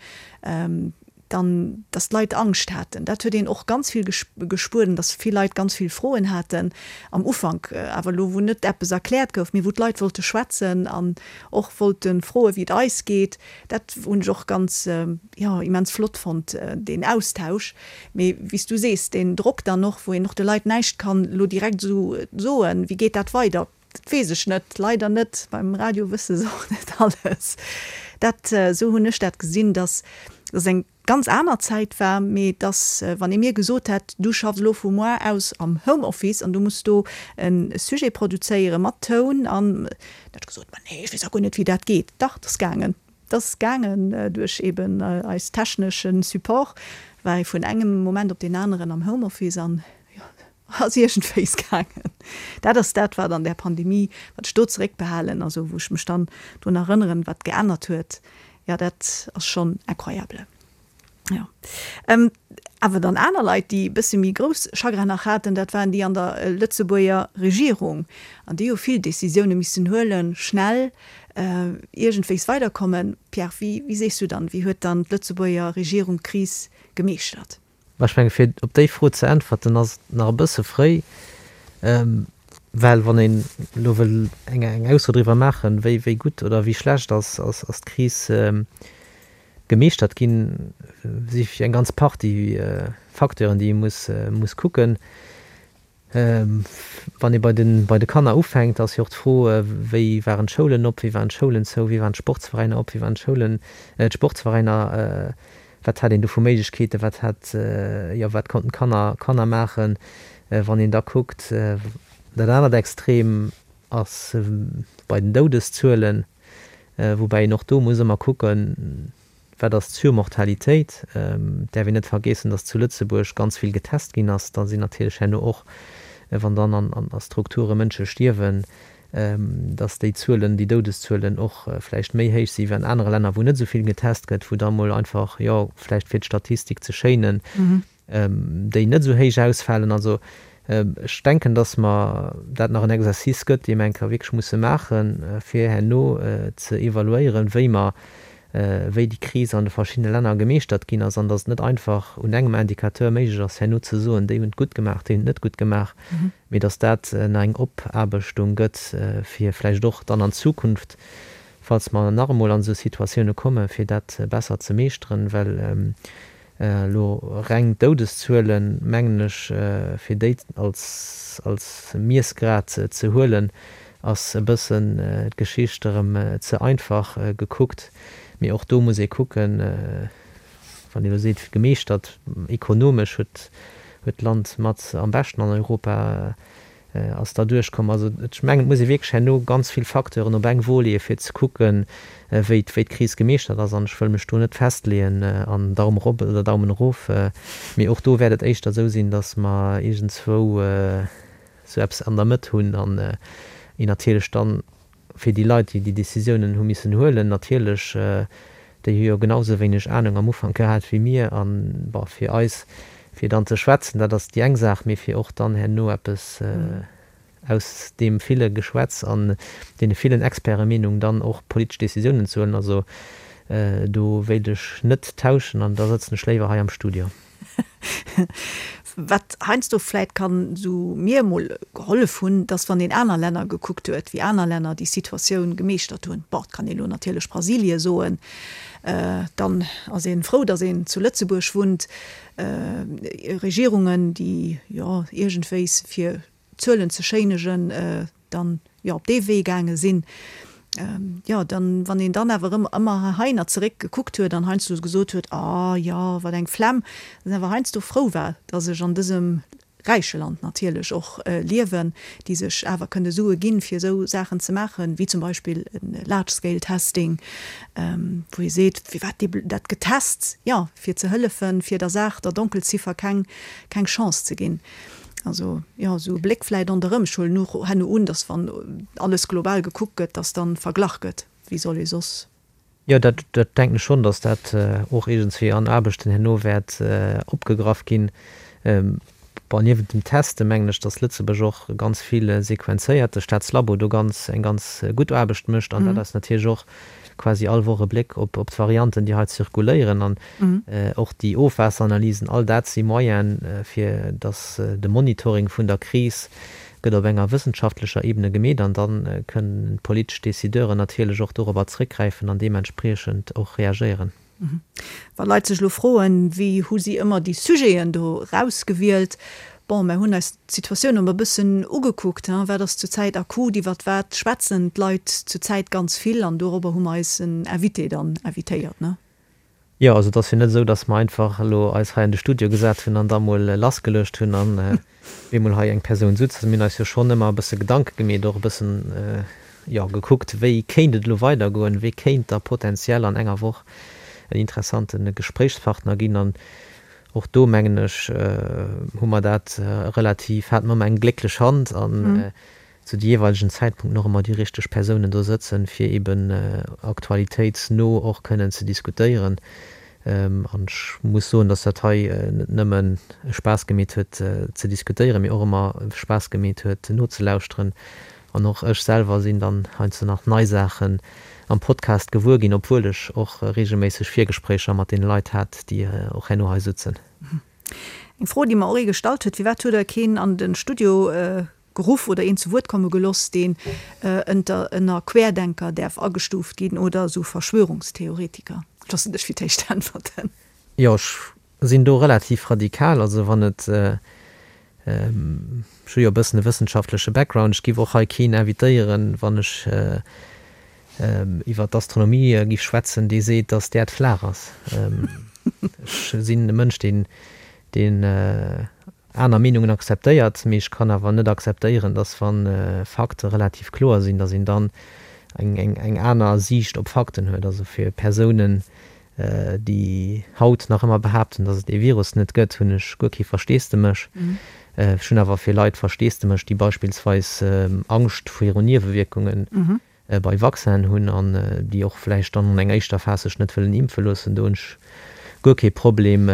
A: dann, dass d'Leit Angscht haten. Dat huet een och ganz vill gespuert, dass vill Leit ganz vill Froen haten am Ufank, awer elo wou net eppes erkläert gouf, mee wou d'Leit wollte schwätzen an och wollte froen, wéi et eis geet. Dat hunn ech och ganz, jo, immens flott fonnt, deen Austausch. Mee wéi s du sees, deen Drock dann och, wou een och de Leit näischt kann elo direkt esou soen, wéi geet dat weider, dat weess ech net, leider net. Beim Radio wësse se och net alles. Dat, esou hunn ech dat gesinn, dass dass eng ganz aner Zäit war, mee dass, wann ee mir gesot hätt, du schaffs elo vu moar aus am Homeoffice an du muss do e Sujet produzéiere mat Toun an, da hätt ech gesot, ma nee, ech weess a guer net, wéi dat geet. Dach, dat ass gaangen. Dat ass gaangen duerch eben eis technesche Support, war ee vun engem Moment op deen aneren am Homeoffice an jo, ass iergendwéis gaangen. Dat ass dat, wat an där Pandemie, wat ech do zeréckbehalen, also wou ech mech dann drun erënneren, wat geännert huet, jo, dat ass schonn incroyable. Jo. Awer dann aner Leit, déi e bësse méi grouss Chagrin nach haten, dat waren déi an der Lëtzebuerger Regierung. An déi hu vill Décisioune missen huelen, schnell, iergendwéis weiderkommen. Pierre, wéi, wéi sees du dann, wéi huet dann d'Lëtzebuerger Regierung d'Kris gemeeschtert?
C: Mä ech menge fir op déi Fro ze äntwerten, ass et nach e bësse fréi, well wann een elo wëll eng eng Ausso driwwer maachen, wéi wéi gutt oder wéi schlecht ass ass d'Kris gemeeschtert ginn, si eng ganz Partie Facteuren, déi ee muss muss kucken. Wann ee bei de bei de Kanner ufänkt, ass jo och d'Fro, wéi waren d'Schoulen op, wéi waren d'Schoulen zou, wéi waren d'Sportsveräiner op, wéi waren d'Schoulen, d'Sportsveräiner, wat hat een do vu Méiglechkeeten, wat hat, jo, wat konnten d'Kanner Kanner maachen. Wann een da kuckt, dat anert Extrem ass bei den Doudeszuelen, woubäi een och do muss ëmmer kucken, Wat ass d'Surmortalitéit? Et däerf een net vergeessen, datt zu Lëtzebuerg ganz vill getest ginn ass. Da sinn natierlech herno och, wann dann an Strukture Mënsche stierwen, datt déi Zuelen, déi Doudeszuelen och vläicht méi héich si wéi an anere Länner, wou net esou vill getest gëtt, wou da mol einfach, jo, vläicht fir d'Statistik ze schéinen, déi net esou héich ausfalen. Also ech denken, dass mer dat nach en Exercice gëtt, dee mer eng Kéier wierklech musse maachen, fir herno ze evaluéieren, wéi mer, wéi déi Kris an de verschiddene Länner gemeeschtert ginn ass, an dass et net einfach un engem Indicateur méiglech ass, herno ze soen, déi hunn et gutt gemaach, déi hunn et net gutt gemaach, mee dass dat nach eng Opaarbechtung gëtt, fir vläicht och dann an Zukunft, falls mer nach emol an esou Situatioune kommen, fir dat besser ze meeschteren, well Elo reng d'Doudeszuelen, mengen ech, fir déi als als Miessgrad ze huelen, ass e bëssen d'Geschicht erëm ze einfach gekuckt. Mee och do muss ee kucken, wann ee elo seet, gemeeschtert, ekonomesch huet huet d'Land mat am beschten an Europa. Ass da duerchkomm. Also ech mengen, et muss ee wierklech herno ganz vill Facteuren op eng Wo leeën, fir ze kucken, wéi d'Kris gemeeschtert ass. An ech wëll mech do net festleeën an Daumen erop oder Daumen erof. Mee och do wäert et éischter esou sinn, datt mer iergendzwou esou eppes an der Mëtt hunn an een natierlech dann fir déi Leit, déi déi Décisiounen hu missen huelen, natierlech, déi hu jo genau sou wéineg Ahnung am Ufank gehat wéi mir. An, bon, fir eis, fir dann ze schwätzen, dat ass déi eng Saach, mee fir och dann herno eppes aus deem ville Geschwätz an deene villen Expertemeenungen dann och politesch Décisiounen ze huelen, also do wéilt ech net tauschen an da sëtzen ech léiwer hei am Studio.
A: Wat heiansdo vläit kann esou mir emol gehollef hunn, dass wann een aner Länner gekuckt huet, wéi aner Länner déi Situatioun gemeeschtert hunn, bon, et kann ee lo natierlech Brasilie soen, dann ass ee frou, dass een zu Lëtzebuerg wunnt, Regierungen, déi jo iergendwéis fir Zuelen ze schéinegen, dann jo op dee Wee gaange sinn, jo dann, wann een dann awer erëm ëmmer heihinner zeréck gekuckt huet an heiansdo gesot huet, ah jo, wat eng Flemm, dass een awer heiansdo frou war, dass ech an dësem räiche Land natierlech och liewen, déi sech awer kënne Sue ginn, fir esou Saachen ze maachen, wéi zum Beispill e Large-Scale-Testing, wou ee seet, firwat dat getest? Jo, fir ze hëllefen, fir der Saach, der Donkelziffer keng Chance ze ginn. Also, jo, esou e Bléck vläit ronderëm. Ech huelen och herno un, datt wann alles global gekuckt gëtt, datt dann verglach gëtt. Wéi soll ee soss?
C: Jo, dat denken ech schonn, datt dat och iergendswéi an Aarbechten herno wäert opgegraff ginn. Bon, niewent dem Teste mengen ech, datt Lëtzebuerg och ganz vill sequenzéiert, de Staatslabo do ganz eng ganz gutt Aarbecht mécht an dat eis natierlech och quasi all Woch e Bléck op d'Varianten, déi hei zirkuléieren an och déi Ofwaasseranalysen, all dat si Moyene fir datt de Monitoring vun der Kris gëtt op enger wëssenschaftlecher Ebene gemeet an da kënnen d'politesch Décideuren natierlech och dorobber zréckgräifen an deementspriechend och reagéieren.
A: Wa Leit sech elo froen, wéi hu si ëmmer déi Sujeten do erausgewielt, bon, mär hunn eis d'Situatioun ëmmer e bëssen ugekuckt, hein, wat ass zurzäit akut, iwwert wat schwätzen d'Leit zurzäit ganz vill an dorobber hu mer eis en Invité dann invitéiert, ne?
C: Jo, also et ass jo net esou, datt mer einfach elo eis hei an de Studio gesat hunn an da mol lassgeluecht hunn an op eemol hei eng Persoun sutz. Also mir hunn eis jo schonn ëmmer e bësse Gedanke gemeet, och e bëssen, jo, gekuckt, wéi kéint et elo weidergoen, wee kéint da potenziell an enger Woch en interessante Gespréichspartner ginn. An och do, mengen ech, hu mer dat relativ, hate mer ëmmer eng glécklech Hand an zu de jeeweilegen Zäitpunkten och ëmmer déi richteg Persounen do sëtzen, fir eben aktualitéitsno och kënnen ze diskutéieren. An ech muss soen, dass dat hei net nëmmen Spaass gemeet huet ze diskutéieren, mee och ëmmer Spaass gemeet huet nozelauschteren. An och ech selwer sinn dann heiansdo nach nei Saachen am Podcast gewuer ginn, obwuel ech och reegelméisseg Virgespréicher mat deene Leit hat, déi och herno hei sutzen.
A: Eng Fro, déi mer och ee gestallt huet, Firwat huet Der keen an de Studio geruff oder een zu Wuert komme geloss, deen ënter ënner Querdenker däerf agestuuft ginn oder esou Verschwörungstheoretiker? Ech loossen dech fir d'éischt äntwerten.
C: Jo, ech sinn do relativ radikal. Also wann et, ech hu jo e bëssen e wëssenschaftleche Background, ech giff och hei keen invitéieren, wann ech iwwer d'Astronomie giff schwätzen, dee seet, datt d'Äerd flaach ass. Ech sinn e Mënsch, deen, deen aner Meenungen akzeptéiert, mee ech kann awer net akzeptéieren, dass wa Fakte relativ kloer sinn, dass een dann eng aner Siicht op Fakten huet. Also fir Persounen, déi haut nach ëmmer behaapten, dass et dee Virus net gëtt, hunn ech guer kee Versteesdemech. Ech hunn awer fir Leit Versteesdemech, déi beispillsweis Angscht viru Niewewierkungen bei Vaccinen hunn an déi och vläicht dann an enger éischter Phas sech net wëllen impfe loossen, do hunn ech guer kee Problem.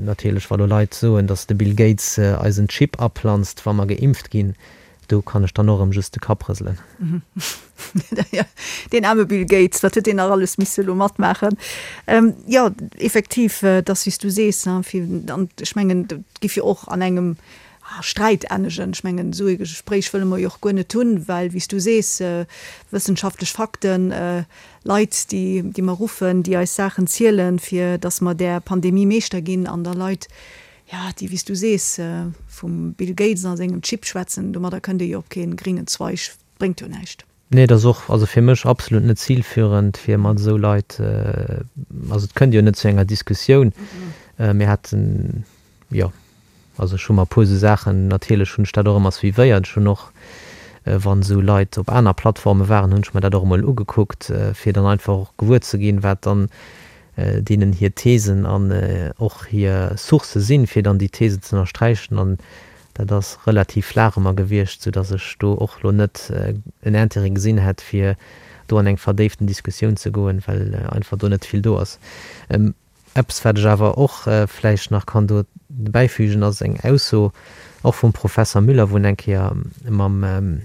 C: Natierlech, wa lo Leit soen, datt de Bill Gates eis en Chip aplanzt, wa mer geimpft ginn, do kann ech dann och erëm just de Kapp rëselen.
A: Deen aarme Bill Gates, wat huet deen nach alles misse lo matmaachen? Jo, effektiv, et ass wéi s du sees, fir, an ech mengen, et giff jo och an engem Sträit ennegen. Ech mengen, esou ee Gespréich wëlle mer jo och guer net hunn, well, wéi s du sees, wëssenschaftlech Fakten, Leit, déi, déi mer ruffen, déi eis Saachen zielen, fir datt mer där Pandemie Meeschter ginn, an da Leit, jo, déi, wéi s du sees, vum Bill Gates a sengem Chip schwätzen, domadder kënnt ee jo op kee gréngen Zweig, bréngt jo näischt.
C: Nee, et ass och, also fir mech absolut net zilführend, fir mat esou Leit, also et kënnt jo net zu enger Diskussioun. Mir haten, jo. Also ech hu mer e puer esou Saachen, natierlech hunn ech dat och ëmmer suivéiert. Ech hunn och, wann esou Leit op aner Plattforme waren, hunn ech mer dat och emol ugekuckt, fir dann einfach och gewuer ze ginn, wat dann deenen hir Thesen an och hir Sourcë sinn, fir dann déi Thesen ze ënnersträichen. An dat ass relativ flaach ëmmer gewiescht, soudass ech do och elo net en Intérêt gesinn hätt, fir do an eng verdéiften Diskussioun ze goen, well einfach do net vill do ass. Eppes, wat ech awer och vläicht nach kann do bäifügen, ass eng Ausso och vum Professer Müller, wou en eng Kéier mam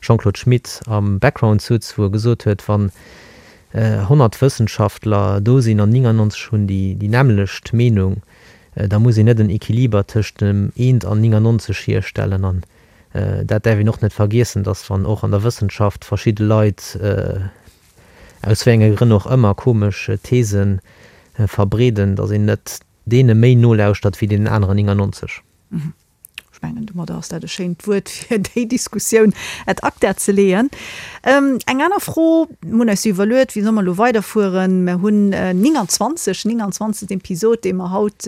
C: Jean-Claude Schmit am Background sutz, wou e gesot huet, wann 100 Wëssenschaftler do sinn an 99 hunn déi nämmlecht Meenung, da muss een net en Equiliber tëscht dem eent an 99 hierstellen. An dat däerf een och net vergiessen, datt wann och an der Wëssenschaft verschidde Leit, aus wéi enge Grënn och ëmmer, komesch These verbreeden, datt een net deene méi nolauschtert wéi deenen aneren 99.
A: Ech mengen, domadder ass dat e schéint Wuert, fir déi Diskussioun ad acta ze leeën. Eng aner Fro, Mir hunn eis jo iwwerluet, wéi solle mer elo weiderfueren. Mer hunn 29, 29. Episod, dee mer haut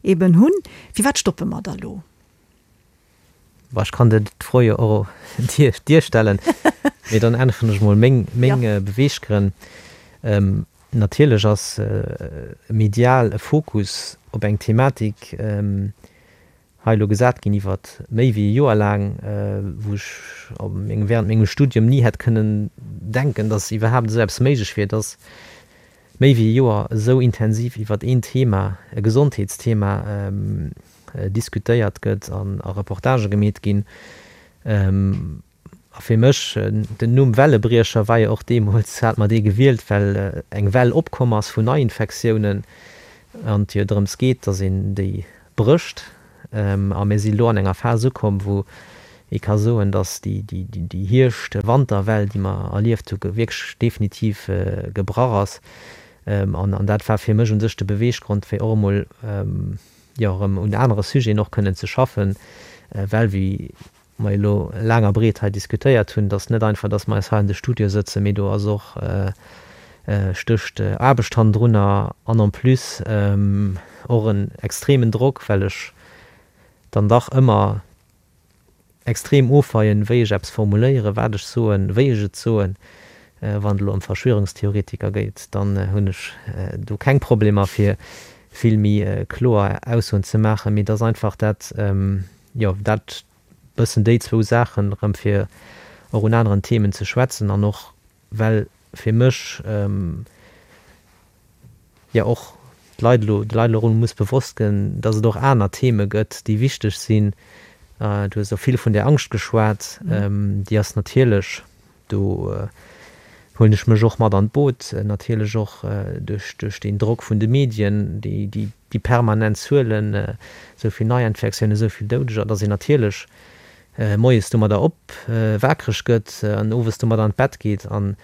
A: eeben hunn. Firwat stoppe mer da elo?
C: Bon, ech kann dir d'Fro jo och dir stellen, mee dann äntweren ech mol meng, meng Beweeggrënn. Natierlech ass medial e Fokus op eng Thematik hei elo gesat ginn iwwer méi wéi e Joer laang, wou ech während mengem Studium ni hätt kënnen denken, dass iwwerhaapt esou eppes méiglech wier, dass méi wéi e Joer esou intensiv iwwer een Thema, e Gesondheetsthema diskutéiert gëtt an a Reportagë gemeet ginn. A fir mech, den Numm Wellebriecher war jo och deemools, hat mer dee gewielt, well eng Well opkomm ass vun Neiinfektiounen an et jo drëms geet, datt een déi brécht. A mir si lo an enger Phas ukomm, wou ee ka soen, datt déi Hierscht-Wanterwell, déi mer erlieft hu, wierklech definitiv gebrach ass. An dat war fir mech u sech de Beweeggrond, fir och emol, jo, erëm un anere Sujeten och kënnen ze schaffen, well, wéi mer elo laang a breet hei diskutéiert hunn, dass net einfach, dass mer eis hei an de Studio sëtzen, mee do ass och, stécht Aarbecht hannendrunner an en plus och en extremen Drock, well ech dann dach ëmmer extrem ofweien, wéi ech eppes formuléieren, wat ech soen, wéi ech et soen. Wann et elo ëm Verschwörungstheoretiker geet, dann hunn ech do keng Problemer, fir vill méi kloer Aussoen ze maachen, mee et ass einfach dat, jo, dat bëssen déi zwou Saachen erëm fir och un aneren Themen ze schwätzen an och well fir mech jo och d'Leit elo, de Leit elo erëm muss bewosst gënn, dass et och aner Theme gëtt, déi wichteg sinn. Du hues och vill vun där Angscht geschwat, déi ass natierlech Do huelen ech mech och mat an d'Boot, natierlech och duerch deen Drock vun de Medien, déi permanent Zuelen, esou vill Neiinfektiounen, esou vill Doudeger, datt een natierlech moies domadder op wakereg gëtt an owes domadder an d'Bett geet. An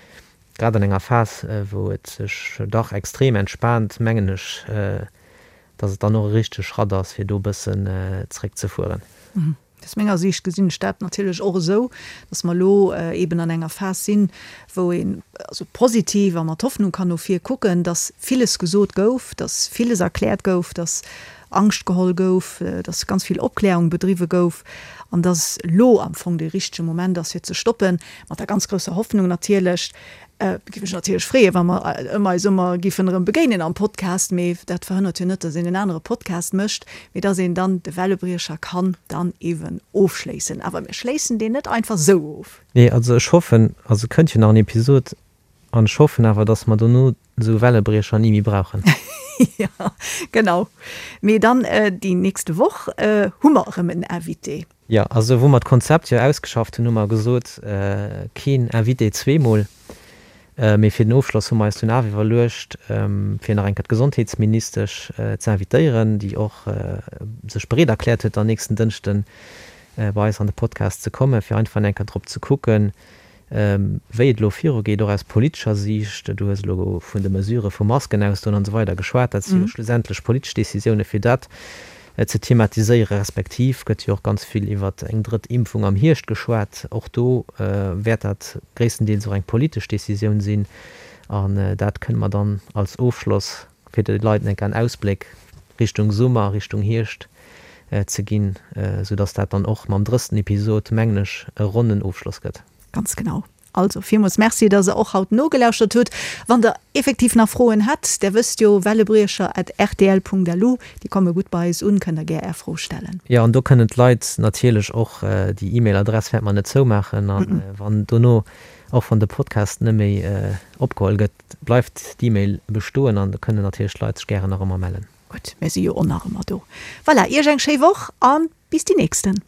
C: grad an enger Phas, wou et sech dach extrem entspaant, mengen ech, datt et dann och e richtege Schratt ass, fir do e bëssen zréckzefueren.
A: Aus menger Siicht gesinn ech dat natierlech och esou, dass mer elo eeben an enger Phas sinn, wou een also positiv a mat Hoffnung kann no vir kucken, dass villes gesot gouf, dass villes erkläert gouf, dass Angscht geholl gouf, dass ganz vill Opklärung bedriwwe gouf an dass elo am Fong dee richtege Moment ass fir ze stoppen, mat der ganz grousser Hoffnung natierlech, Giff mech natierlech freeën, wa mer ëmmer eis ëmmer giffen erëm begéinen am Podcast, mee dat verhënnert jo net, dass een en anere Podcast mécht, mee dass een dann de Wellebriecher kann dann ewen ofschléissen. Awer mir schléissen deen net einfach sou of.
C: Nee, also ech hoffen, also et kënnt jo nach en Episod, an ech hoffen awer, dass mer dono esou Wellebriecher ni méi brauchen.
A: Jo, genau. Mee dann déi nächste Woch hu mer erëm en Invité.
C: Jo, also wou mer d'Konzept jo ausgeschafft hunn, hu mer gesot, keen Invité zweemol. Mee fir den Ofschloss hu mer eis dunn awer iwwerluecht, fir nach eng Kéier d'Gesondheetsministesch ze invitéieren, déi och sech bereet erkläert huet, dann nächsten Dënschden bei eis an de Podcast ze kommen, fir einfach eng Kéier drop ze kucken, Wéi et elo virugeet, och aus politescher Siicht, du hues elo vun de Mesurë vu Masken ausdoen an esou weider geschwat, dat si jo schlussendlech politesch Décisioune fir dat ze thematiséieren, respektiv gëtt jo och ganz vill iwwer eng drëtt Impfung am Hierscht geschwat. Och do wäert dat gréisstendeels och eng politesch Décisioun sinn an dat kënne mer dann als Ofschloss fir de Leit enk en Ausbléck Richtung Summer, Richtung Hierscht. ze ginn, sou dass dat dann och mam drëssten Episod, mengen ech, e ronnen Ofschloss gëtt.
A: Ganz genau. Also, villmools Merci, dass Der och haut nogelauschtert hutt. Wann Der effektiv nach Froen hätt, Der wësst jo, wellebriecher at rtl.lu, déi komme gutt bei eis un, kënnt Der gär Är Fro stellen.
C: Jo, an do kënnen d'Leit natierlech och, déi E-Mail-Adress wäerte mer net zoumaachen, a wann dono, och wann de Podcast net méi opgeholl gëtt, bleift d'E-Mail bestoen an do kënnen natierlech d'Leit sech gären nach ëmmer mellen.
A: Gutt, mir si jo och nach ëmmer do. Voilà, Iech eng schéi Woch a bis déi nächsten.